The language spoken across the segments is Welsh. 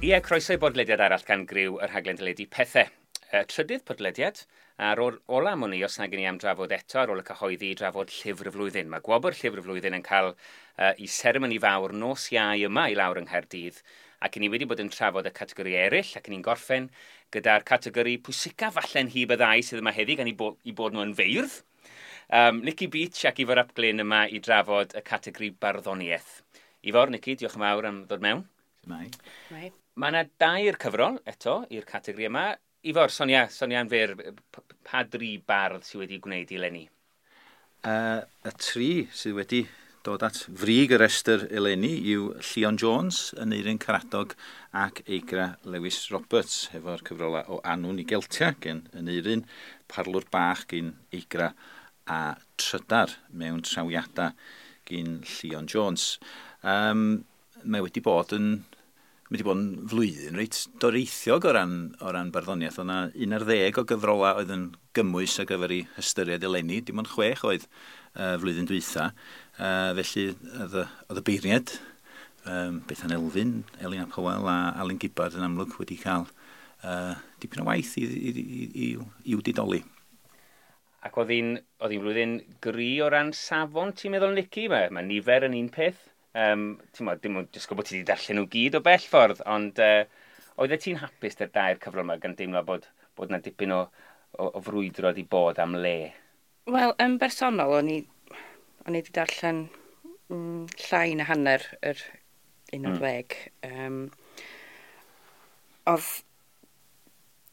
Ie, croeso i bodlediad arall gan griw y rhaglen deledu Pethau. Y trydydd podlediad, a'r ola am wn i, os nag i ni am drafod eto ar ôl y cyhoeddi i drafod Llyfr y Flwyddyn. Mae gwobr Llyfr y Flwyddyn yn cael i seremoni fawr nos Iau yma i lawr yng Nghaerdydd, ac i ni wedi bod yn trafod y categori eraill, ac i ni'n gorffen gyda'r categori pwysica falle'n hyb y ddau sydd yma heddi, gan i bod nhw yn feirdd. Nicky Beach ac Ifor ap Glyn yma i drafod y categori barddoniaeth. Ifor, Nicky, diolch yn fawr am ddod mewn. Mai. Mai. Mae yna dair cyfrol eto i'r categori yma. Ifor, Sonia yn fyr, pa dri bardd sydd wedi gwneud eleni? Y tri sydd wedi dod at frig y restr eleni yw Llion Jones, Aneirin Karadog ac Eigra Lewis Roberts, hefo'r cyfrolau o Annwn i Geltia gen Aneirin, Parlwr Bach gen Eigra a Trydar mewn trawiadau gen Llion Jones. Mae wedi bod yn Mae wedi bod yn flwyddyn reit doreithiog o ran barddoniaeth. Oedd yna 11 o gyfrolau oedd yn gymwys ar gyfer ei hystyried eleni. Dim ond 6 oedd flwyddyn dwytha. Felly oedd y beirniad, Bethan Elfyn, Elin ap Hywel a Alun Gibbard yn amlwg wedi cael dipyn o waith i'w didoli. Ac oedd hi'n flwyddyn gry o ran safon, ti'n meddwl, Nicky? Mae nifer yn un peth. Ti'n meddwl, dim ond disgwyl bod ti wedi darllen nhw gyd o bell ffordd, ond oeddet ti'n hapus 'da'r dair cyfrol yma gan deimlo bod 'na dipyn o frwydro wedi bod am le? Wel, yn bersonol, o'n i wedi darllen llai na hanner yr 11. Oedd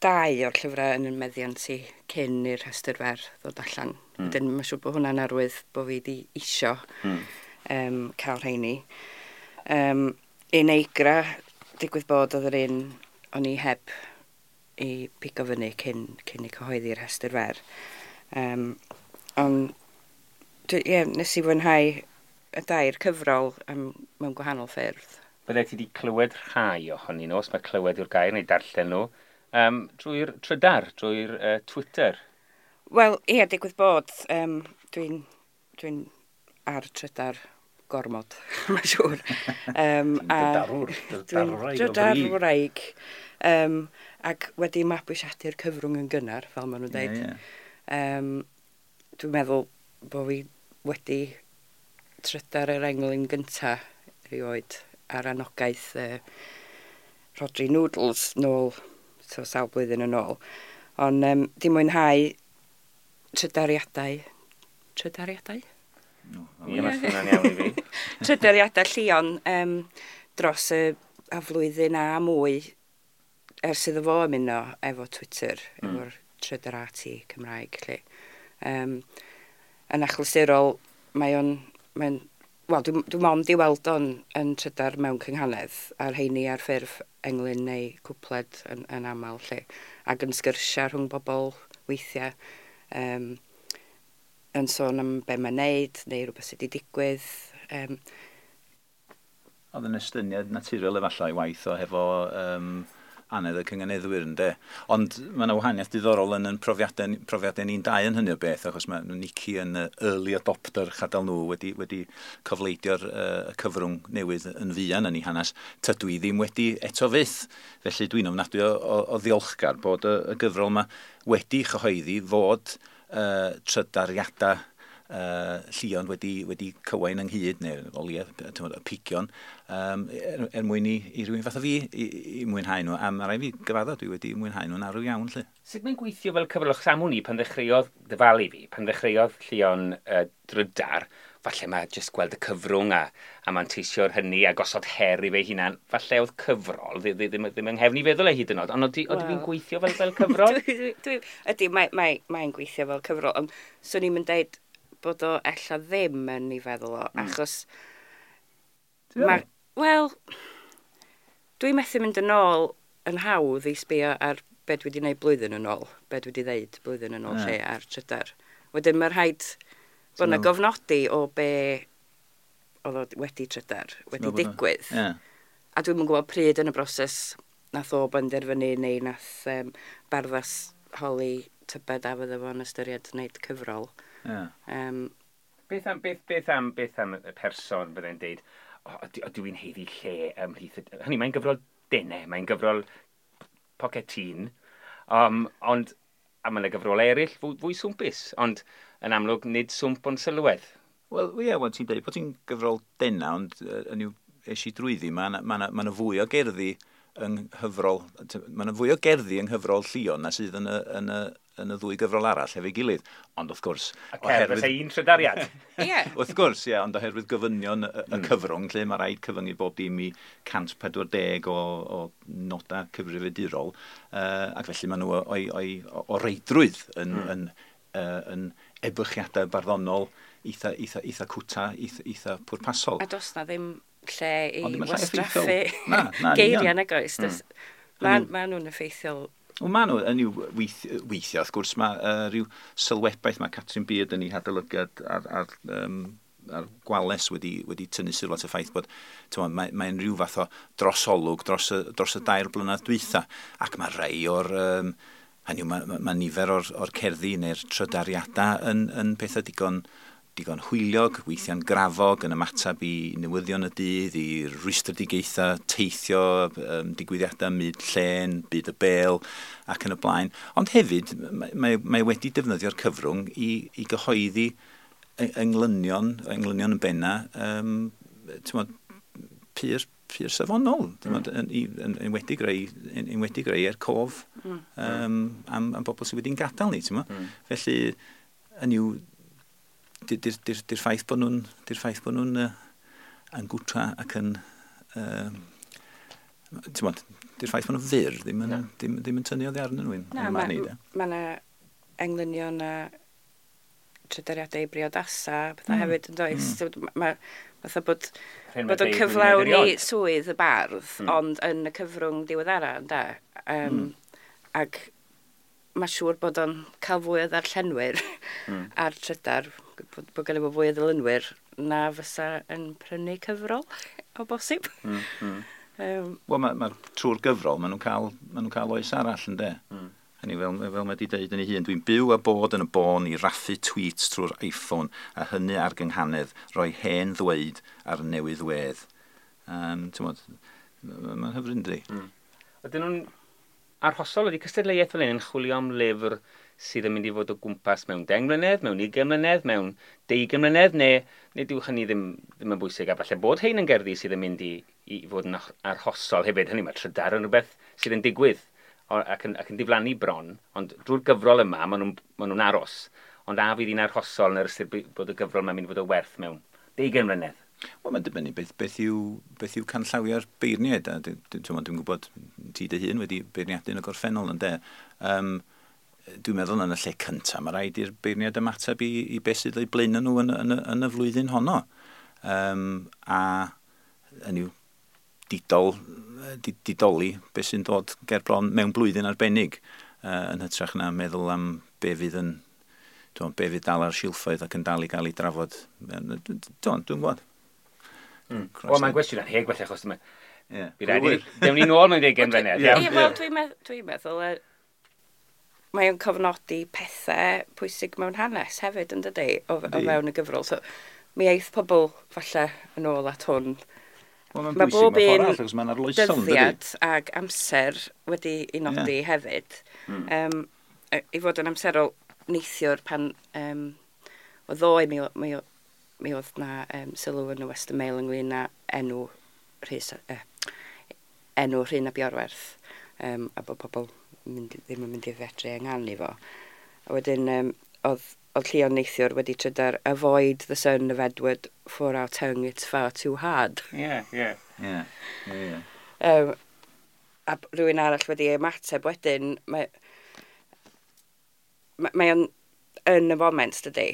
dau o'r llyfrau yn y meddiant i cyn i'r rhestr fer ddod allan. Wedyn, mae'n siŵr bod hwnna'n arwydd bod fi wedi isio cael rheini. Un Eigra, digwydd bod oedd yr un o'n i heb i pigo fyny cyn i cyhoeddi'r rhestr fer. Ond, ie, nes i fwynhau y dair cyfrol mewn gwahanol ffyrdd. Bydde ti wedi clywed rhai ohonyn nhw, os mae clywed yw'r gair, neu darllen nhw, drwy'r trydar, drwy'r Twitter. Wel, ie, digwydd bod, dwi'n ar trydar gormod, mae'n siŵr. Drydarwr, Dwi'n drydarwraig o fri. drydarwraig. Ac wedi mabwysiadu'r cyfrwng yn gynnar, fel maen nhw'n dweud. Ie, ie. Dwi'n meddwl bod fi wedi trydar yr englyn gynta erioed ar anogaeth Rhodri Noodles nôl, so sawl blwyddyn yn ôl. Ond di mwynhau trydariadau. Trydariadau? No, Ie, mae'n swnio'n iawn i fi. Trydariadau Llion dros y a flwyddyn a mwy ers iddo fo ymuno efo Twitter, efo'r Trydarati Cymraeg, lle. Yn achlysurol, mae'n, wel, dwi mond i weld o'n yn trydar mewn cynghanedd, a'r rheini ar ffurf englyn neu cwpled yn aml, lle. Ac yn sgyrsiau rhwng bobl weithiau, yn sôn am be mae'n neud, neu rhywbeth sydd wedi digwydd. Oedd yn estyniad naturiol efallai waith o hefo anedd y cynganeddwyr, ynde. Ond mae yna wahaniaeth diddorol yn profiadau ni'n dau yn hynny o beth, achos mae Nicky yn early adopter chadel nhw wedi cofleidio'r y cyfrwng newydd yn fuan yn ei hanes. Tydw i ddim wedi eto fyth. Felly dwi'n ofnadwy o ddiolchgar bod y gyfrol yma wedi chyhoeddi fod trydariadau Llion wedi cywain ynghyd, neu o leia, t'mod, y pigion, er mwyn i rywun fath o fi i mwynhau nhw. A mae rhaid fi gyfadda, dwi wedi mwynhau nhw'n arw iawn, lle. Sut mae'n gweithio fel cyfrol? Achos am wn i, pan ddechreuodd, dyfalu fi, pan ddechreuodd Llion drydar, falle mae jyst gweld y cyfrwng a manteisio'r hynny a gosod her i fe hunan, falle oedd cyfrol ddim yng nghefn i feddwl e hyd yn oed, ond oedd hi'n gweithio fel cyfrol? Ydy, mae'n gweithio fel cyfrol, ond swn i'n mynd deud bod o ella ddim yn ei feddwl o, achos Ti'n meddwl? Wel, dwi'n methu mynd yn ôl yn hawdd i sbio ar be dwi wedi gwneud blwyddyn yn ôl, be dwi wedi ddeud blwyddyn yn ôl lle ar trydar. Wedyn mae rhaid bod yna gofnodi o be oedd o wedi trydar, wedi meddwl bod digwydd. A dwi'm yn gwybod pryd yn y broses nath o benderfynu neu nath Barddas holi tybed a fydde fo'n ystyried wneud cyfrol. Beth am y person byddai'n deud, o, ydw i'n haeddu lle ymhlith? Hynny, mae'n gyfrol denau, mae'n gyfrol pocetîn, ond a mae yna gyfrolau eraill fwy swmpus, ond yn amlwg nid swmp ond sylwedd. Wel, ie, well, ti'n dweud bod ti'n gyfrol dena, ond yn yw es i drwyddi, mae yna ma fwy o gerddi yng nghyfrol, mae yna fwy o gerddi yng nghyfrol Llion na sydd yn y ddwy gyfrol arall efo'i gilydd. Ond wrth gwrs... A cerdd fysa un trydariad. Ie. Wrth gwrs, ie, ond oherwydd gofynion y cyfrwng, lle mae rhaid cyfyngu bob dim i 140 o nodau cyfrifiadurol, ac felly maen nhw o reidrwydd yn ebychiadau barddonol eitha cwta, eitha pwrpasol. A does na ddim lle i wastraffu geiriau nag oes. Mae nhw'n effeithiol. Wel, maen nhw yn i'w weithio, wrth gwrs, mae rhyw sylwebaeth mae Catrin Beard yn ei hadolygiad ar Gwales wedi tynnu sylw at y ffaith bod mae'n rhyw fath o drosolwg dros y 2 blynedd dwytha, ac mae rhai o'r... hynny yw, mae nifer o'r cerddi neu'r trydariadau yn pethau digon hwyliog, weithiau'n grafog, yn ymateb i newyddion y dydd, i rwystredigaethau, teithio, digwyddiadau myd llên, byd y bêl, ac yn y blaen. Ond hefyd, mae wedi defnyddio'r cyfrwng i gyhoeddi englynion yn benna, pur safonol, yn wedi greu er cof am bobl sydd wedi'n gadael ni, ti'n mo? Felly, yn yw, di'r ffaith bod nhw'n yn gwta ac yn ti'n bod, di'r ffaith bod nhw'n fyr ddim yn tynnu oddi arnyn nhw. Na, mae yna englynion a trydariadau briodasa pethau hefyd yn does. Mae fatha bod o'n cyflawni swydd y bardd, ond yn y cyfrwng diweddara, ynde? Ac mae siŵr bod o'n cael fwy o ddarllenwyr ar trydar, bod gen i fo fwy o ddilynwyr na fysa yn prynu cyfrol o bosib. Wel, mae trwy'r gyfrol, maen nhw'n cael oes arall, ynde? Hynny, fel mae wedi deud yn ei hun, dwi'n byw a bod yn y bôn i raffu tweets trwy'r iPhone a hynny ar gynghanedd, rhoi hen ddweud ar newydd wedd. Ti'n bod, mae'n hyfryd, yndi? Ydyn nhw'n arhosol, ydy cystadleuaeth fel hyn yn chwilio am lyfr sydd yn mynd i fod o gwmpas mewn 10 mlynedd, mewn 20 mlynedd, mewn 20 mlynedd, neu dyw hynny ddim yn bwysig, a falle bod hein yn gerddi sydd yn mynd i fod yn arhosol hefyd. Hynny, mae trydar yn rhywbeth sydd yn digwydd ac yn diflannu bron, ond drwy'r gyfrol yma, maen nhw'n aros. Ond a fydd hi'n arhosol yn yr ystyr bod y gyfrol yma'n mynd i fod o werth mewn 20 mlynedd? Wel, mae'n dibynnu beth yw canllawiau'r beirniaid. Dwi'n gwybod ti dy hun wedi beirniadu yn y gorffennol, ynde. Dwi'n meddwl yn y lle cyntaf, mae rhaid i'r beirniaid ymateb i beth sydd o'i blaenau nhw yn y flwyddyn honno. A yn yw didoli beth sy'n dod ger bron mewn blwyddyn arbennig, yn hytrach na meddwl am be fydd yn be fydd dal ar silffoedd ac yn dal i gael ei drafod. Dwi'n gwybod. Wel, mae'n gwestiwn anheg felly, achos dyma. Dewn ni nôl mewn 20 mlynedd. Ie, wel, dwi'n meddwl, mae o'n cofnodi pethau pwysig mewn hanes hefyd, yn dydi, o fewn y gyfrol. So, mi eith pobl falle yn ôl at hwn. Wel, mae'n bwysig mewn ffordd arall, mae'n arloesol, yn dydi? Dyddiad ag amser wedi ei nodi hefyd. I fod yn amserol neithiwr pan o ddoe mi oedd na sylw yn y Western Mail ynglyn â enw Rhun ap Iorwerth, a bod pobl ddim yn mynd i fedru ynganu fo. A wedyn oedd Llion neithiwr wedi trydar "Avoid the son of Edward, for our tongue it's far too hard." Ie, ie. Ie. A rhywun arall wedi ymateb wedyn, mae o'n yn y foment, dydy.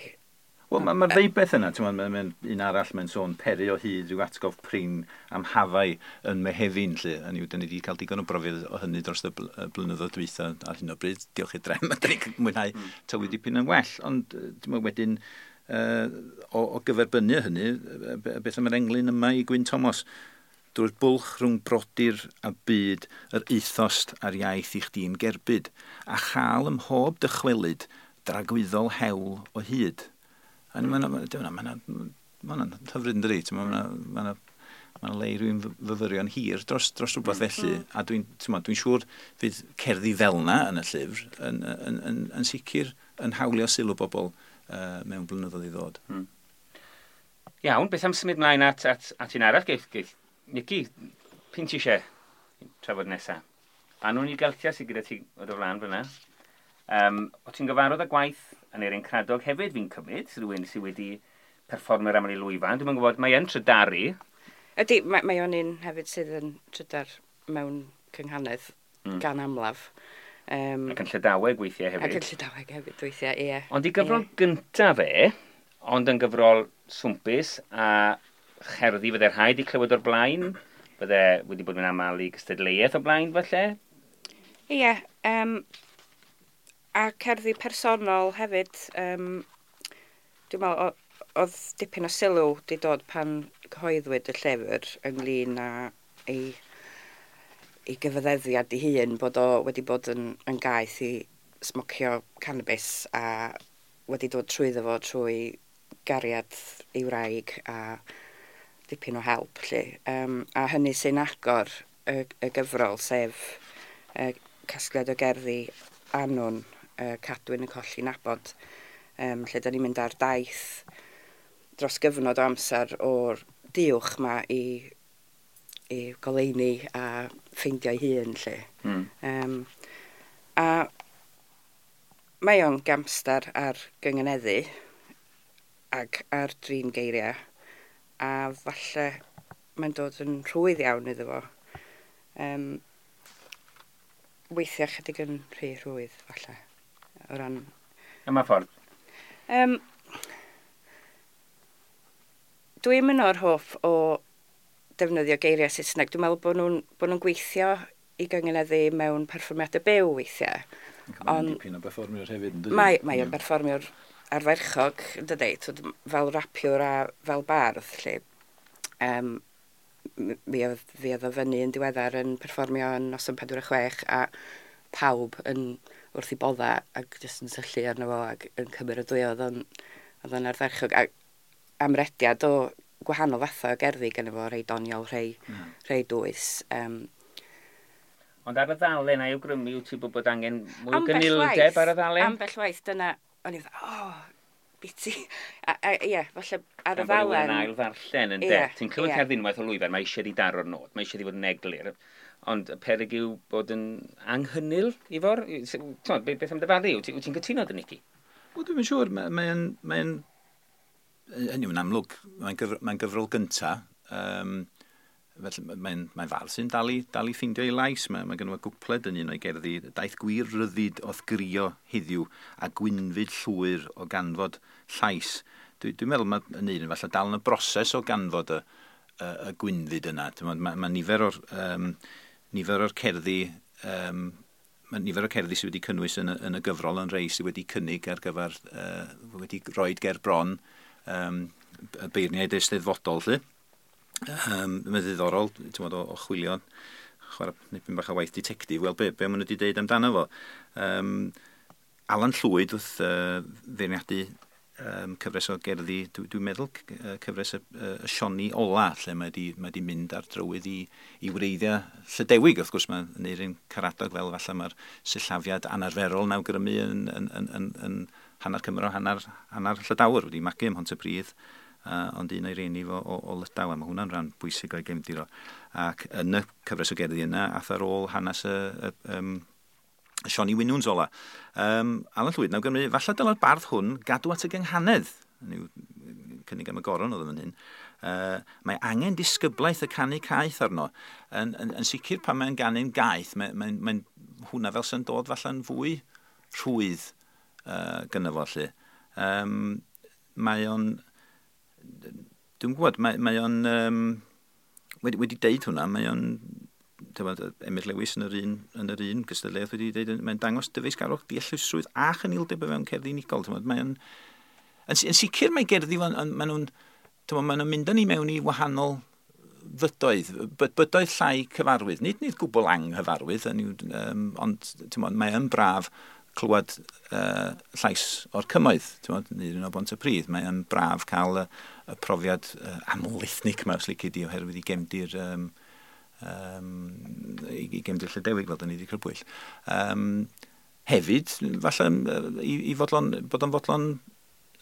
Wel, mae'r ddeubeth yna, ti'n meddwl, un arall mae'n sôn peri o hyd rhyw atgof prin am hafau yn Mehefin, lle. Hynny yw, dyn ni wedi cael digon o brofiad o hynny dros y blynyddoedd dwytha ar hyn o bryd. Diolch i'r drefn, dyn ni'n mwynhau tywydd dipyn yn well. Ond, ti'n meddwl, wedyn, o gyferbynnu hynny, beth am yr englyn yma i Gwyn Thomas? Drwy'r bwlch rhwng brodyr a byd, yr eithost a'r iaith i chdi'n gerbyd, a chael ym mhob dychwelyd dragwyddol hewl o hyd. A mae'n hyfryd yn dydi, mae'n Mae'n le i rywun fyfyrio'n hir dros rhywbeth felly. A dwi'n siŵr fydd cerddi fel 'na yn y llyfr yn sicr yn hawlio sylw bobl mewn blynyddoedd i ddod. Iawn, beth am symud mlaen at un arall? Geith Nici, p'un ti eisiau trafod nesaf? Annwn i Geltia sydd gyda ti o dy flaen fyna. O ti'n gyfarwydd â gwaith Aneirin Karadog hefyd, fi'n cymryd, rhywun sydd wedi perfformio'r aml i lwyfan. Dwi'n gwybod, mae yn trydaru. Ydy, mae o'n un hefyd sydd yn trydar mewn cynghanedd gan amlaf. Ac yn Llydaweg weithiau hefyd. Ac yn Llydaweg hefyd weithiau, ie. Ond i gyfrol gyntaf fe, ond yn gyfrol swmpus a cherddi fydde rhaid i clywed o'r blaen, fydde wedi bod yn aml i gystadleuaeth o'r blaen falle? Ie, a cerddi personol hefyd. Dwi'n meddwl, oedd dipyn o sylw wedi dod pan cyhoeddwyd y llyfr ynglyn â ei gyfaddeddiad ei hun bod o wedi bod yn gaeth i smocio cannabis a wedi dod trwyddo fo trwy gariad ei wraig a dipyn o help. Lly. A hynny sy'n agor y gyfrol, sef casgliad o gerddi Annwn, Cadwyn yn colli nabod, lle da ni'n mynd ar daith dros gyfnod o amser o'r diwch ma i goleuni a ffeindio'i hun, lle. A mae o'n gamstar ar gyngeneddu ac ar drin geiriau, a falle mae'n dod yn rhwydd iawn iddo fo. Weithiau chydig yn rhy rhwydd, falle. O ran... Yma ffordd? Dwi'n mynd o'r hoff o defnyddio geiriau Saesneg. Dwi'n meddwl bod nhw'n gweithio i gyngeneddu mewn perfformiadau byw weithiau. Ond dipyn o berfformiwr hefyd, yn dydi? Mae o'n berfformiwr arferchog, yn dydi, fel rapiwr a fel bardd, lle. Mi oedd o fyny yn diweddar yn perfformio yn noson 46 a pawb yn wrth i bodda ac jyst yn syllu arno fo ac yn cymeradwyo. Oedd o'n ardderchog. A amrediad o gwahanol fathau o gerddi gynno fo, rhai doniol, rhai dwys. Ond ar y ddalen, a'i awgrymu wyt ti bod angen mwy o gynildeb ar y ddalen? Ambell waith, dyna, o'n i fatha, biti. Ie, falle ar y ddalen... Yn ail ddarllen, yn de. Ti'n clywed cerdd unwaith o lwyfan, mae eisiau di daro'r nod, mae eisiau di fod yn eglur. Ond y peryg yw bod yn anghynnil, Ifor? Beth am dyfalu? Wyt ti'n cytuno dy Nici? Wel, dwi'n siŵr, mae'n hynny yw'n amlwg, mae'n gyfrol gynta. Felly mae'n fardd sy'n dal i ffeindio ei lais. Mae gynno fo gwpled yn un o'i gerddi. Daeth gwir ryddid o'th grio heddiw a gwynfyd llwyr o ganfod llais. Dwi'n meddwl mae yn un falle dal yn y broses o ganfod y gwynfyd yna. Mae nifer o'r cerddi mae nifer o'r cerddi sydd wedi cynnwys yn y gyfrol yn rei sydd wedi cynnig ar gyfer wedi roed ger bron y beirniaid eisteddfodol, lly. Mae'n ddiddorol, ti'n meddwl, o chwilio, chwarae nipyn bach o waith ditectif, wel, be maen nhw wedi deud amdano fo. Alan Llwyd wrth feirniadu cyfres o gerddi, dwi'n meddwl cyfres y Sioni Ola, lle mae wedi mynd ar drywydd i wreiddiau Llydewig. Wrth gwrs, mae Aneirin Karadog fel falle mae'r sillafiad anarferol yn awgrymu yn hanner Cymro, hanner Llydawr, wedi magu ym Mhontypridd. Ond un o'i rieni fo o Lydaw, a mae hwnna'n rhan bwysig o'i gefndir o. Ac yn y cyfres o gerddi yna, ath ar ôl hanes y Sioni Winwns ola. Alan Llwyd, nawr Gymru, falle dyla'r bardd hwn gadw at y gynghanedd. Yw, cynnig am y goron oedd yn hyn. Mae angen disgyblaeth y canu caeth arno. Yn sicr pan mae'n ganu'n gaeth, mae'n hwnna fel sy'n dod falle'n fwy rhwydd gynno fo, lly. Mae o'n... Dwi'n gwybod, mae o'n wedi deud hwnna, mae o'n, Emyr Lewis yn yr un gystadleuaeth wedi deud, mae'n dangos dyfeisgarwch, deallusrwydd a chynildeb o fewn cerddi unigol. Mae o'n, yn sicr mae gerddi, maen nhw'n mynd â ni mewn i wahanol fydoedd, bydoedd llai cyfarwydd, nid gwbl anghyfarwydd, ond mae yn braf clywed llais o'r cymoedd, ti'n neu un o Bontypridd. Mae'n braf cael y profiad aml-ethnig yma, os lici di, oherwydd i gefndir i gefndir Llydewig, fel da ni wedi crybwyll. Hefyd, falle i fodlon, bod o'n fodlon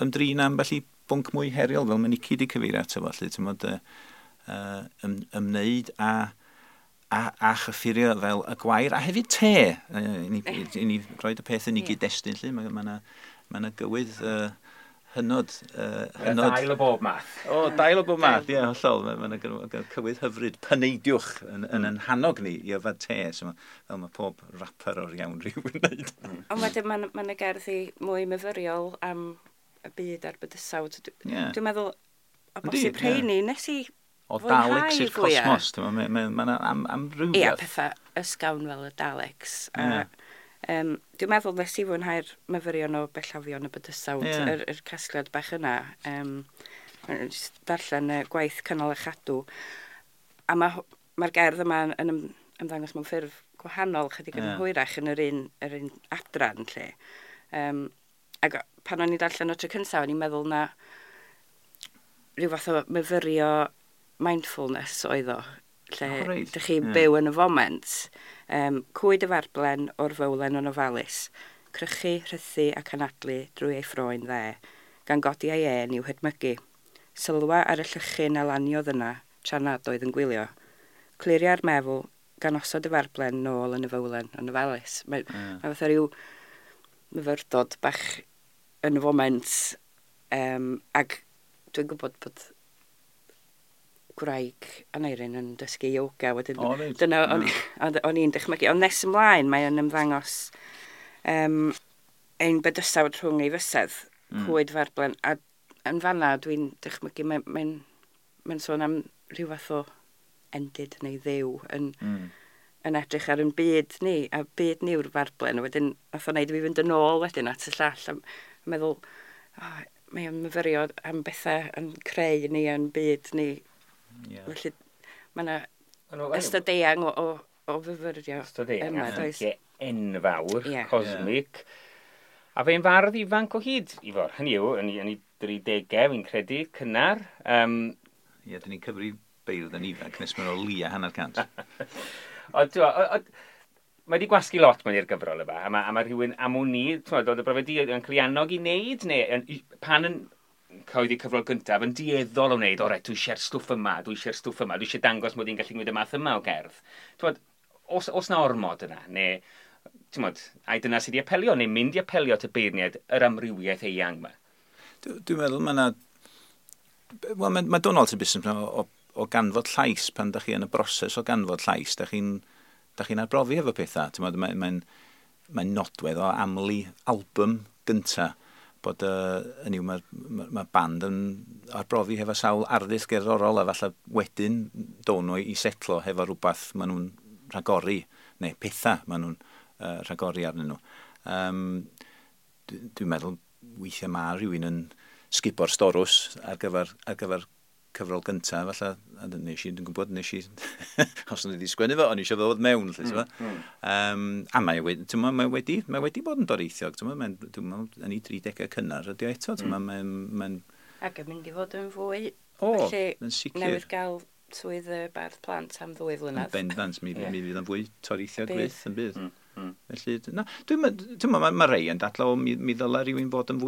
ymdrin am felly bwnc mwy heriol, fel mae Nici wedi cyfeirio ato fo, felly, ti'n modd, ymwneud a chyffurio fel y gwair, a hefyd te, i ni roed y peth yn ei gyd-destun, lle, mae gywydd hynod. Dail o bob math. O, dail o bob math, ie, hollol. Mae yna cywydd hyfryd, paneidiwch yn hannog ni i yfed te, so fel mae pob rapper o'r iawn rhyw yn wneud. Ond wedyn mae yna gerddi mwy myfyriol am y byd a'r bydysawd. Dwi'n meddwl, o bosib rheini, nes i o Daleks i'r cosmos, mae'n amrywiaeth. Ie, pethau ysgawn fel y Daleks. Dwi'n meddwl nes i fwynhau'r myfyrion o bellafion y bydysawd, yr casgliad bach yna. Darllen y gwaith cynnal a chadw. A mae'r gerdd yma yn ymddangos mewn ffurf gwahanol, chydig yn hwyrach yn yr un adran lle. Ac pan o'n i'n darllen o tro cyntaf, o'n i'n meddwl na rhyw fath o myfyrio mindfulness oedd o, lle dych chi'n byw yn y foment. Cwyd y farblen o'r fowlen yn ofalus, crychu, rhythu ac anadlu drwy ei ffroen dde, gan godi ei ên i'w hedmygu. Sylwa ar y llychyn a laniodd yna, tra nad oedd yn gwylio. Cliria'r meddwl gan osod y farblen nôl yn y fowlen yn ofalus. Mae fatha rhyw myfyrdod bach yn y foment, ac dwi'n gwybod bod gwraig Aneirin yn dysgu yoga wedyn. Dyna o'n i'n dychmygu. Ond nes ymlaen mae o'n ymddangos ein bydysawd rhwng ei fysedd, cwyd farblen, a yn fanna dwi'n dychmygu mae'n sôn am rhyw fath o endid neu ddew yn edrych ar ein byd ni, a byd ni yw'r farblen. Wedyn nath o wneud i fi fynd yn ôl wedyn at y llall a meddwl, mae o'n myfyrio am bethau yn creu ni yn byd ni. Yeah. Felly mae yna ystod eang o fyfyrio. Ystod eang, enfawr, cosmic. A fe'n fardd ifanc o hyd, Ifor. Hynny yw, yn ei 30au, fi'n credu, cynnar. Ie, dyn ni'n cyfri beirdd yn ifanc, nes mae'n o lia 150. Ond, mae wedi gwasgu lot mewn i'r gyfrol yma, a mae rhywun am wn i, oedd y brofiad di yn cael ei annog i wneud, neu pan yn cyhoeddi cyfrol gyntaf yn dueddol o wneud, o reit, dwi eisiau'r stwff yma, dwi eisiau'r stwff yma, dwi eisiau dangos mod i'n gallu gwneud y math yma o gerdd. T'wod, os na ormod yna, neu, t'mod, ai dyna sydd wedi apelio, neu mynd i apelio at y beirniaid yr amrywiaeth eang yma? Dwi'n meddwl mae yna... Wel, mae Donald yn busnes o ganfod llais, pan da chi yn y broses o ganfod llais, da chi'n arbrofi efo pethau. T'mod, mae'n nodwedd o aml i album gynta, bod hynny yw, mae band yn arbrofi hefo sawl arddull gerddorol, a falle wedyn down nhw i setlo hefo rhywbeth maen nhw'n rhagori, neu pethau maen nhw'n rhagori arnyn nhw. Dwi'n meddwl weithiau mae rhywun yn sgubo'r storws ar gyfer cyfrol gyntaf, falle, a nes i, dwi'n gwybod, nes i, os o'n i wedi sgwennu fo, o'n i eisiau ddod mewn, lle, ti'n a mae wedi bod yn doreithiog, ti'n meddwl, yn ei 30au cynnar ydi o eto, ti'n meddwl, mae'n... Ac yn mynd i fod yn fwy, felly, yn sicr. Newydd gael swydd y bardd plant am 2 flynedd. Yn bendant, mi fydd yn fwy toreithiog fyth yn bydd. Felly, na, dwi'n meddwl, mae rei yn dadlau, mi ddylai rhywun fod yn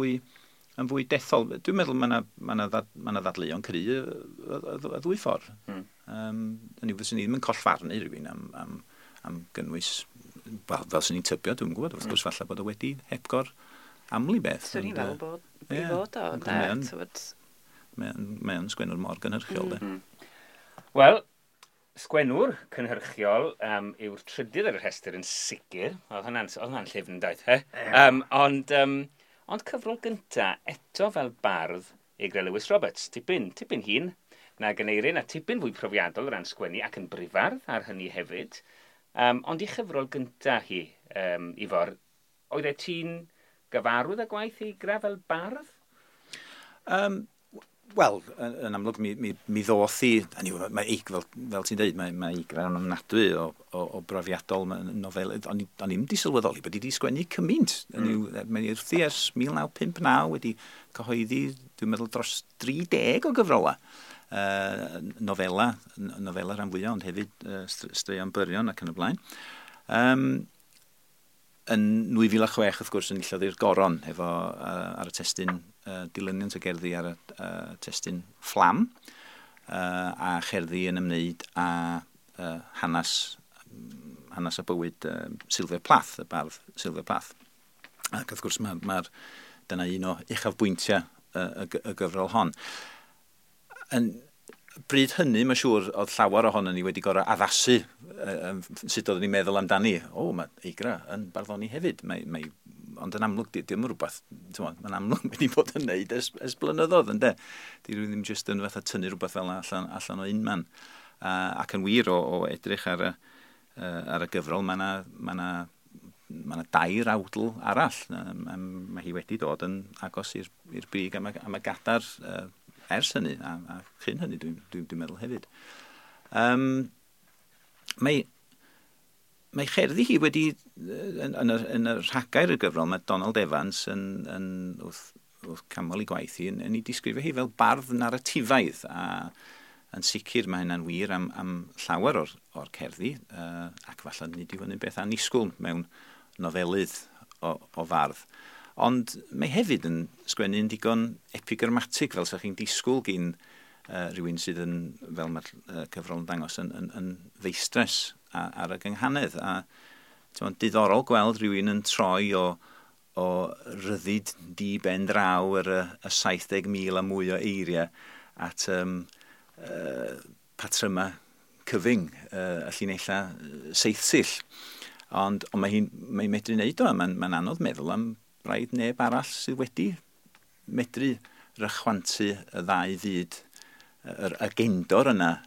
fwy dethol. Dwi'n meddwl mae yna ddadleuon cry y ddwy ffordd. Hynny yw, fyswn i ddim yn collfarnu rhywun am gynnwys, fel swn i'n tybio, dwi'n gwybod, wrth gwrs falle bod o wedi hepgor aml i beth. Swn i'n fel bod i fod o, Mae o'n sgwennwr mor gynhyrchiol, de. Wel, sgwennwr cynhyrchiol yw'r trydydd ar y rhestr yn sicr. Oedd hwnna'n llyfn, daeth, he? Ond cyfrol gynta, eto fel bardd, Eigra Lewis Roberts, tipyn hŷn nag Aneirin, a tipyn fwy profiadol o ran sgwennu ac yn brifardd ar hynny hefyd. Ond i chyfrol gynta hi, Ifor, oedd e ti'n gyfarwydd â gwaith Eigra fel bardd? Wel, yn amlwg mi ddoth hi, mae Eig, fel ti'n dweud, mae Eigra yn ofnadwy o brofiadol nofel, o'n i'm di sylweddoli bod hi wedi sgwennu cymaint. Mae wrthi ers 1959 wedi cyhoeddi, dwi'n meddwl, dros 30 o gyfrola. Nofela rhan fwyaf, ond hefyd straeon byrion ac yn y blaen. Yn 2006, wrth gwrs, enillodd hi'r Goron efo ar y testun dilyniant o gerddi ar y testun Fflam, a cherddi yn ymwneud â hanes a bywyd Sylvia Plath, y bardd Sylvia Plath. Ac wrth gwrs, dyna un o uchafbwyntiau y gyfrol hon. Yn bryd hynny, mae'n siŵr, oedd llawer ohono ni wedi gorau addasu sut oeddwn ni'n meddwl amdani. O, mae Eigra yn barddoni hefyd. Ond yn amlwg, dim rhywbeth, mae'n amlwg wedi bod yn neud ers blynyddoedd, ynde? Di rhywun ddim jyst yn fatha tynnu rhywbeth fel allan o unman. Ac yn wir o edrych ar y gyfrol, mae yna dair awdl arall. Mae hi wedi dod yn agos i'r brig am y gadar ers hynny, a chyn hynny dwi'n meddwl hefyd. Mae cherddi hi wedi, yn y rhagair y gyfrol, mae Donald Evans yn wrth canmol ei gwaith hi, yn ei disgrifio hi fel bardd naratifaidd, a yn sicr mae hynna'n wir am llawer o'r cerddi, ac falle nid yw hynny'n beth annisgwyl mewn nofelydd o fardd. Ond mae hefyd yn sgwennu'n digon epigrammatig, fel sa chi'n disgwyl gin rhywun sydd yn, fel mae'r cyfrol yn dangos, yn feistres ar y gynghanedd. A diddorol gweld rhywun yn troi o ryddid di ben draw yr y 70,000 a mwy o eiriau at patryma cyfyng, y llinellau seithsill. Ond mae hi'n medru wneud o, mae'n anodd meddwl am braidd neb arall sydd wedi medru rychwantu y ddau fyd, yr agendor yna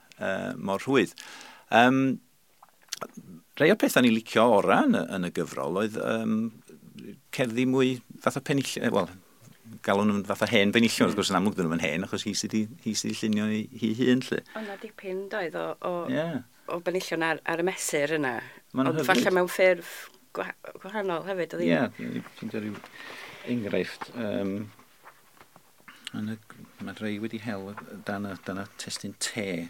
mor rhwydd. Rhai o'r pethau ni'n licio ora yn y gyfrol oedd cerddi mwy fatha penillion, wel, galwn nhw'n fatha hen benillion, wrth gwrs yn amlwg dyn nhw'n hen, achos hi sydd wedi llunio hi hun, lle. Ond na dipyn doedd o benillion ar y mesur yna, ond falle mewn ffurf gwahanol hefyd, oedd hi? Ie, ti'n dweud rhyw enghraifft. Mae rhai wedi hel dan y testun te.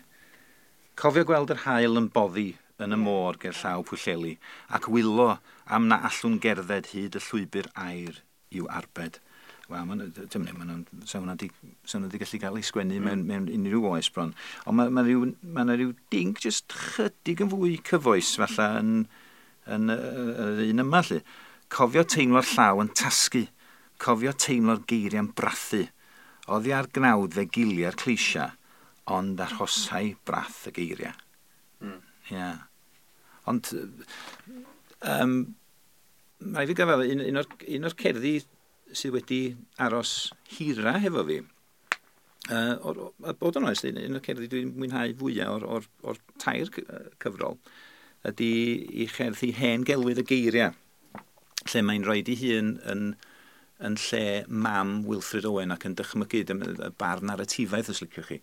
Cofio gweld yr haul yn boddi yn y môr ger llaw Pwllheli, ac wylo am na allwn gerdded hyd y llwybr air i'w arbed. Wel, sa hwnna di gallu cael ei sgwennu mewn unrhyw oes bron. Ond mae yna rhyw ding jyst chydig yn fwy cyfoes, falle yn yr un yma, lle. Cofio teimlo'r llaw yn tasgu, cofio teimlo'r geiriau'n brathu, oddi ar gnawd fe giliau'r cleisia, ond arhosai brath y geiriau. Ie. Ond, mae fi gyfadda, un o'r cerddi sydd wedi aros hira hefo fi, a bod yn onest, un o'r cerddi dwi'n mwynhau fwyaf o'r tair cyfrol, ydy i cherddi Hen Gelwydd y Geiriau, lle mae'n rhoi ei hun yn lle mam Wilfred Owen ac yn dychmygu, y bardd naratifaidd os liciwch chi,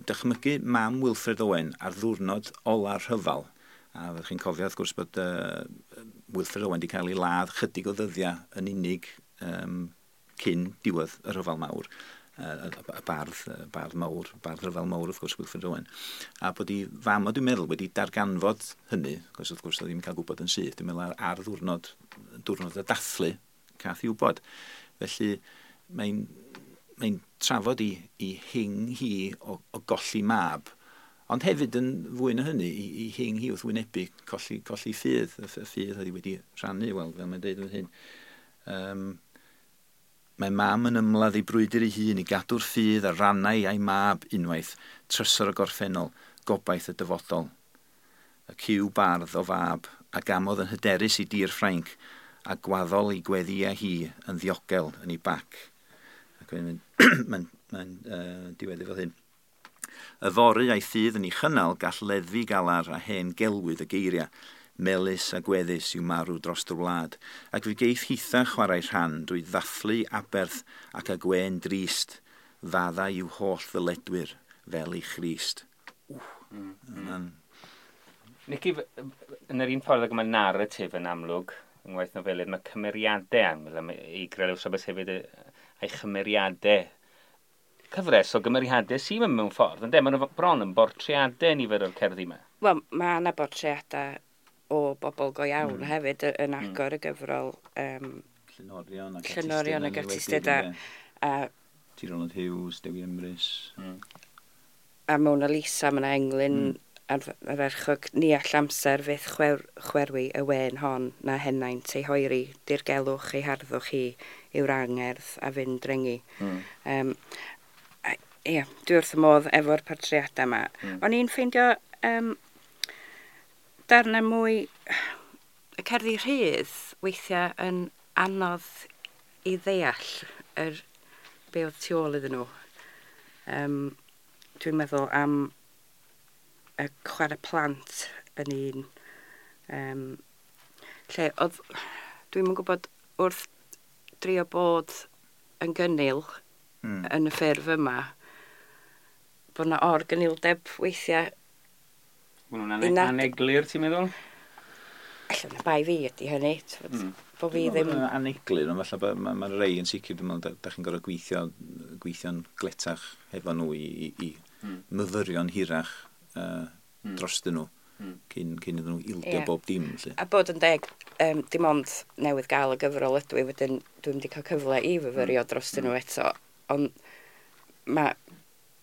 dychmygu mam Wilfred Owen ar ddiwrnod ola'r rhyfel. A fyddwch chi'n cofio wrth gwrs bod Wilfred Owen wedi cael ei ladd chydig o ddyddiau yn unig cyn diwedd y rhyfel mawr. Y bardd mawr, bardd rhyfel mawr wrth gwrs, Wilfred Owen. A bod ei fam o, dwi'n meddwl, wedi darganfod hynny, achos wrth gwrs oedd ddim yn cael gwybod yn syth, dwi'n meddwl ar ddiwrnod y dathlu, cath i wybod. Felly mae'n trafod i hing hi o golli mab, ond hefyd yn fwy na hynny, i hing hi wrth wynebu colli ffydd, y ffydd oedd hi wedi rhannu, wel, fel mae'n dweud yn hyn. Mae mam yn ymladd ei brwydr ei hun i gadw'r ffydd a rannau a'i mab unwaith, trysor y gorffennol, gobaith y dyfodol. Y cyw bardd o fab, a gamodd yn hyderus i dir Ffrainc, a gwaddol ei gweddiau hi yn ddiogel yn ei bac. Ac mae'n diweddu fel hyn. Yfory a'i ffydd yn ei chynnal gall leddfu galar a hen gelwydd y geiriau, melys a gweddus i'w marw dros y wlad, ac fe geith hitha chwarae rhan drwy ddathlu aberth ac a gwên drist Fadda i'w holl ddyledwyr fel i Christ. Ww. Nici, yn yr un ffordd ag mae narratif yn amlwg, yng ngwaith nofelydd, mae cymeriadau amlwg, mae Eigra Lewis Roberts hefyd a'i chymeriadau, cyfres o gymeriadau sy'n mynd mewn ffordd, ynde? Maen nhw bron yn bortreadau nifer o'r cerddi yma. Wel, mae yna bortreadau o bobl go iawn hefyd yn agor y gyfrol. Llenorion ac Llenorion ac artistiaid a T. Ronald Hughes, Dewi Emrys. A Mona Lisa, mae yna englyn ardderchog, ni all amser fyth chwerwi y wên hon na henaint ei hoeri, dirgelwch ei harddwch hi yw'r angerdd a fynd drengi. Ie, dwi wrth y modd efo'r portreadau yma. O'n i'n ffeindio darnau mwy y cerddi rhydd weithiau yn anodd i ddeall yr be oedd tu ôl iddyn nhw. Dwi'n meddwl am y chwarae plant yn un lle oedd, dwi'm yn gwybod, wrth drio bod yn gynnil yn y ffurf yma, bod yna or-gynildeb weithiau. Maen nhw'n aneglur, ti'n meddwl? Alla na bai fi ydy hynny, bo fi ddim. Aneglur, ond falle bod ma rei yn sicr, dwi'n meddwl, da chi'n gorfod gweithio'n gletach efo nhw i myfyrio'n hirach drostyn nhw cyn iddyn nhw ildio bob dim. Lly. A bod yn deg, dim ond newydd gael y gyfrol ydw i, wedyn dwi'n wedi cael cyfle i fyfyrio drostyn nhw eto, ond mae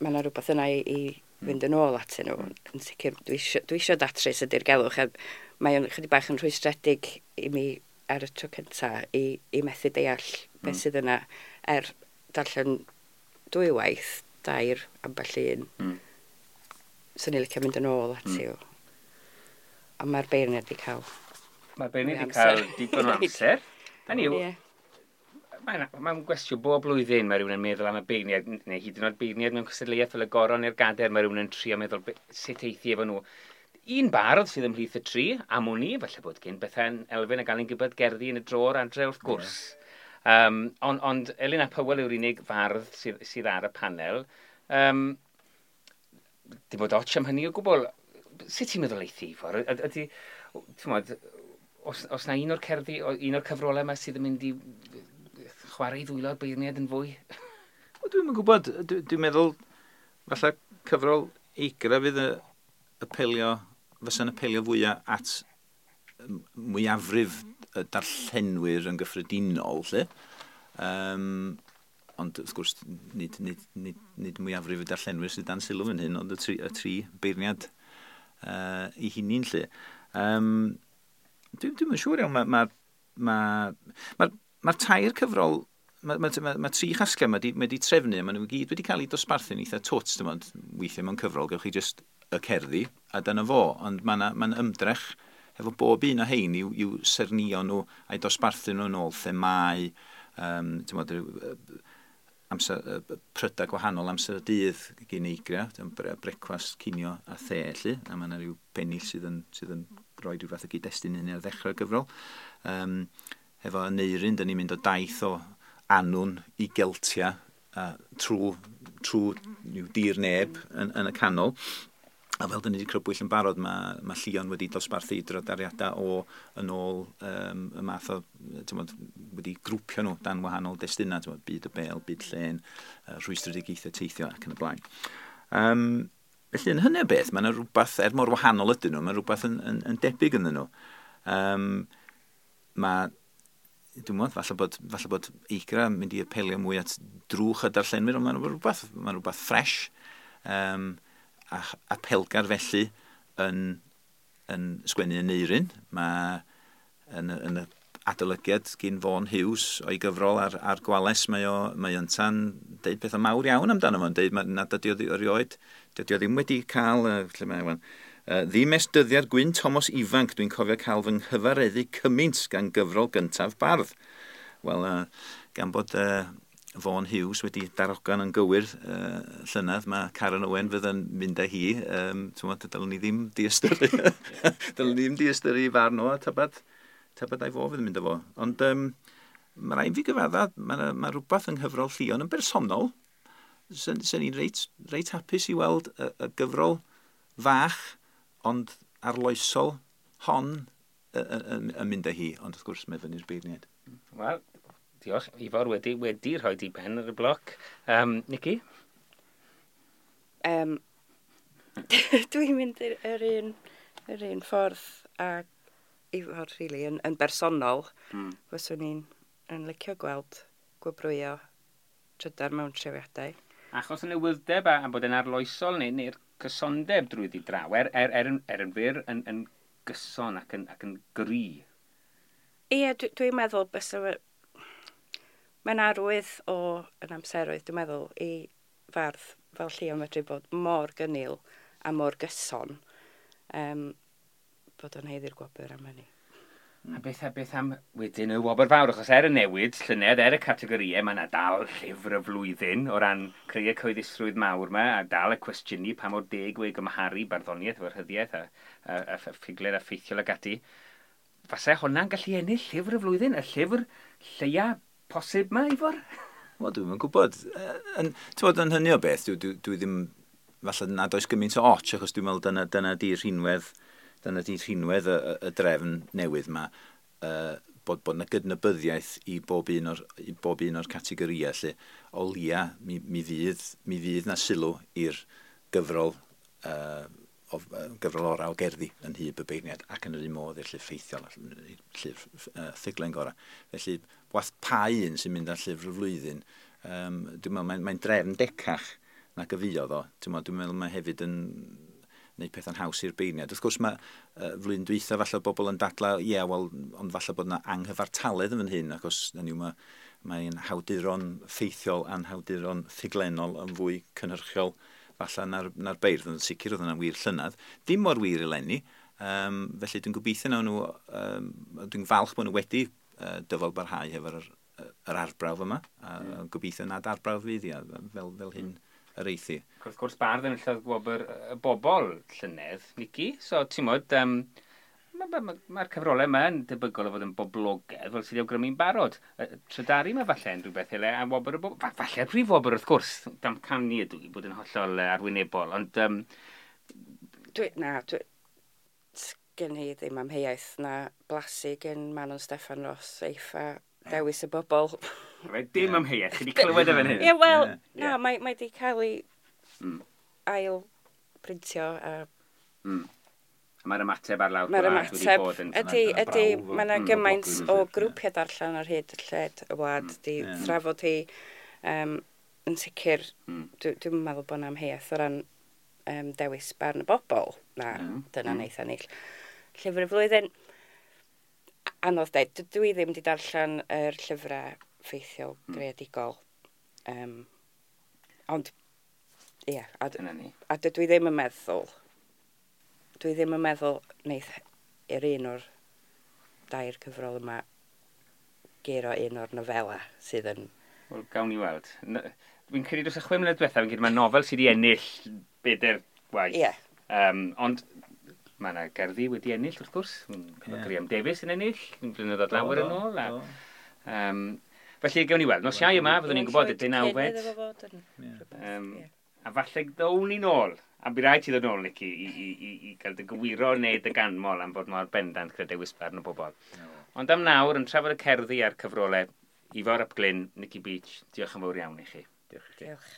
yna rhywbeth yna i fynd yn ôl atyn nhw. Yn sicr, dwi isio datrys y dirgelwch, a mae o'n chydig bach yn rhwystredig i mi ar y tro cynta i methu deall beth sydd yna er darllen dwywaith, dair, ambell un. Swn i'n licio mynd yn ôl ati o. Ond mae'r beirniad wedi cael. Mae'r beirniad wedi cael digon o amser. Hynny yw, mae'n gwestiwn bob blwyddyn mae rhywun yn meddwl am y beirniad, neu hyd yn oed beirniad mewn cystadleuaeth fel y Goron neu'r Gader, mae rhywun yn trio meddwl sut eithi efo nhw. Un bardd sydd ymhlith y tri, am wn i, falle bod gen Bethan Elfyn a Alun Gibbard gerddi yn y drôr adre wrth gwrs. Ond Elin ap Hywel yw'r unig fardd sydd ar y panel. Dim bod ots am hynny o gwbl. Sut ti'n meddwl eithi, Ifor? Ydy, ti'n modd, os na un o'r cerddi, un o'r cyfrolau yma sydd yn mynd i chwarae i ddwylo'r beirniad yn fwy? Wel, dwi'm yn gwybod. Dwi'n meddwl, falle cyfrol Eigra fydd y apelio, fysa'n apelio fwyaf at mwyafrif y darllenwyr yn gyffredinol, lle. Ond wrth gwrs, nid mwyafrif y darllenwyr sydd dan sylw fan hyn, ond y tri beirniad i hunain, lle. Dwi'm yn siŵr iawn, mae'r tair cyfrol, mae tri chasgliad mae di trefnu, maen nhw gyd wedi cael eu dosbarthu'n eitha twt, dim ond weithiau mewn cyfrol, gewch chi jyst y cerddi, a dyna fo, ond mae'n ymdrech efo bob un o hein i'w sernio nhw a'i dosbarthu nhw yn ôl themâu, ti'n bod, amser, prydau gwahanol amser y dydd gyn Eigra, brecwast, cinio a the, lly, a mae yna rhyw bennill sydd yn rhoi rhyw fath o gyd-destun hynny ar ddechrau'r gyfrol. Efo Aneurin, dyn ni'n mynd o daith o Annwn i Geltia, trwy dir neb yn y canol. A fel dyn ni wedi crybwyll yn barod, mae Llion wedi dosbarthu drydariadau o yn ôl y math o, ti'n wedi grwpio nhw dan wahanol destunau, ti'n byd y bel, byd llên, rhwystredigaethau teithio ac yn y blaen. Felly yn hynny o beth, mae yna rhywbeth, er mor wahanol ydyn nhw, mae rhywbeth yn debyg ynddyn nhw. Mae, dwi'n meddwl, falle bod Eigra yn mynd i apelio mwy at drwch y darllenwyr, ond mae'n rhywbeth ffres. A apelgar felly yn sgwennu Aneurin. Mae yn y adolygiad gyn Vaughan Hughes o'i gyfrol ar Gwales, mae ynta'n deud pethau mawr iawn amdano fo'n deud nad ydy o erioed, dydy o ddim wedi cael, lle mae wan, ddim ers dyddiad Gwyn Thomas ifanc, dwi'n cofio cael fy nghyfareddu cymaint gan gyfrol gyntaf bardd. Wel, gan bod Vaughan Hughes wedi darogan yn gywir llynedd, mae Karen Owen fydd yn mynd â hi. Dylwn ni ddim diystyru. Dylwn ni ddim diystyru i farn o, tybed a'i fo fydd yn mynd â fo. Ond mae rhaid fi gyfadda, mae rhywbeth yng nghyfrol Llion yn bersonol. Sen i'n reit hapus i weld y gyfrol fach, ond arloesol hon yn mynd â hi, ond wrth gwrs mae fyny'r beirniaid. Wel, diolch. Ifor wedi rhoi di ben ar y bloc. Nici? Dwi'n mynd yr un ffordd a Ifor, really, yn bersonol. Fyswn i'n yn licio gweld gwobrwyo trydar mewn trefiadau. Achos y newyddeb a bod yn arloesol neu'r cysondeb drwyddi draw, er yn fyr yn gyson ac yn gry. Ie, dwi'n meddwl bysa mae'n arwydd o yn amseroedd, dwi'n meddwl, i fardd fel Llio medru bod mor gynnil a mor gyson, bod o'n haeddu'r gwobr am hynny. A beth am wedyn y wobr fawr, achos er y newid llynedd, er y categorïau, mae yna dal llyfr y flwyddyn o ran creu y cyhoeddusrwydd mawr yma, a dal y cwestiynu pa mor deg yw ei gymharu barddoniaeth efo'r rhyddiaeth a ffuglen a ffeithiol ag ati. Fase hwnna'n gallu ennill llyfr y flwyddyn, y llyfr lleia posib ma, Ifor? Wel, dwi'm yn gwybod. Ti'n yn hynny o beth, dwi ddim, falle nad oes gymaint o och, achos dwi'n meddwl dyna di rhinwedd, dyna di rhinwedd y drefn newydd yma, bod yna gydnabyddiaeth i bob un o'r categorïau, lle o lia mi fydd na sylw i'r gyfrol, gyfrol orau o gerddi yn hyb y beirniad ac yn yr un modd i'r llyfr ffeithiol, llyfr ffuglen gorau. Felly, wath pa un sy'n mynd ar llyfr y flwyddyn, dwi'n meddwl mae'n drefn decach nag y fuodd o. Dwi'n meddwl mae hefyd yn gwneud pethau'n haws i'r beirniad. Wrth gwrs mae flwyddyn dwytha falle bobl yn dadlau, ie, wel, ond falle bod yna anghyfartaledd yn fan hyn, achos hynny yw, mae'n hawduron ffeithiol a'n hawduron ffuglenol yn fwy cynhyrchiol falle na'r beirdd, yn sicr oedd yna'n wir llynedd. Dim mor wir eleni, felly dwi'n gobeithio nawn nhw, dwi'n falch bod nhw wedi dyfal barhau hefo'r yr arbrawf yma, a gobeithio nad arbrawf fydd hi, a fel hyn yr eithi. Ac wrth gwrs bardd yn enillodd gwobr y bobl llynedd, Nici. So, ti'n modd, mae'r ma cyfrolau yma yn debygol o fod yn boblogaidd, fel sydd wedi awgrymu'n barod. Trydaru yma falle yn rhywbeth ele, a wobr y bobl. Falle prif wobr wrth gwrs, damcanu ydw i bod yn hollol arwynebol, ond Na, gen i ddim amheuaeth na blasu gen Manon Steffan Ros eiff a dewis y bobl. Reit, dim amheuaeth, chi wedi clywed e fan hyn. Ie, wel, na, mae di cael ei ail printio a A mae'r ymateb ar lawr mae'r gwlad wedi ymateb bod yn ydy, Dyna ydy, brawf mae yna gymaint o o boblogrwydd, grwpiau darllen ar hyd lled y wlad di thrafod hi. Yn sicr, dwi'n meddwl bod yna amheuaeth o ran dewis barn y bobl. Na, dyna neith ennill. Llyfr y flwyddyn, anodd dweud, dwi ddim wedi darllen yr llyfrau ffeithiol greadigol. Ond, ie, Dyna ni. a dydw i ddim yn meddwl, dwi ddim yn meddwl neith i'r un o'r dair cyfrol yma guro un o'r nofela sydd yn. Wel, gawn ni weld. Dwi'n credu dros y 6 mlynedd diwethaf, fi'n credu mae nofel sydd wedi ennill bedair gwaith. Ond mae yna gerddi wedi ennill, wrth gwrs. Mae Graham Davies yn ennill, yn blynyddoedd lawer yn ôl. A, felly, gawn ni weld. Nos Iau yma, fyddwn ni'n gwybod y 19fed. A falle ddown ni nôl. A bydd rhaid ti ddod nôl, Nici, i gael dy gywiro neu dy ganmol am fod mor bendant gyda dewis barn o bobl. Ond am nawr, yn trafod y cerddi a'r cyfrolau, Ifor ap Glyn, Nici Beech, diolch yn fawr iawn i chi. Diolch i chi. Diolch.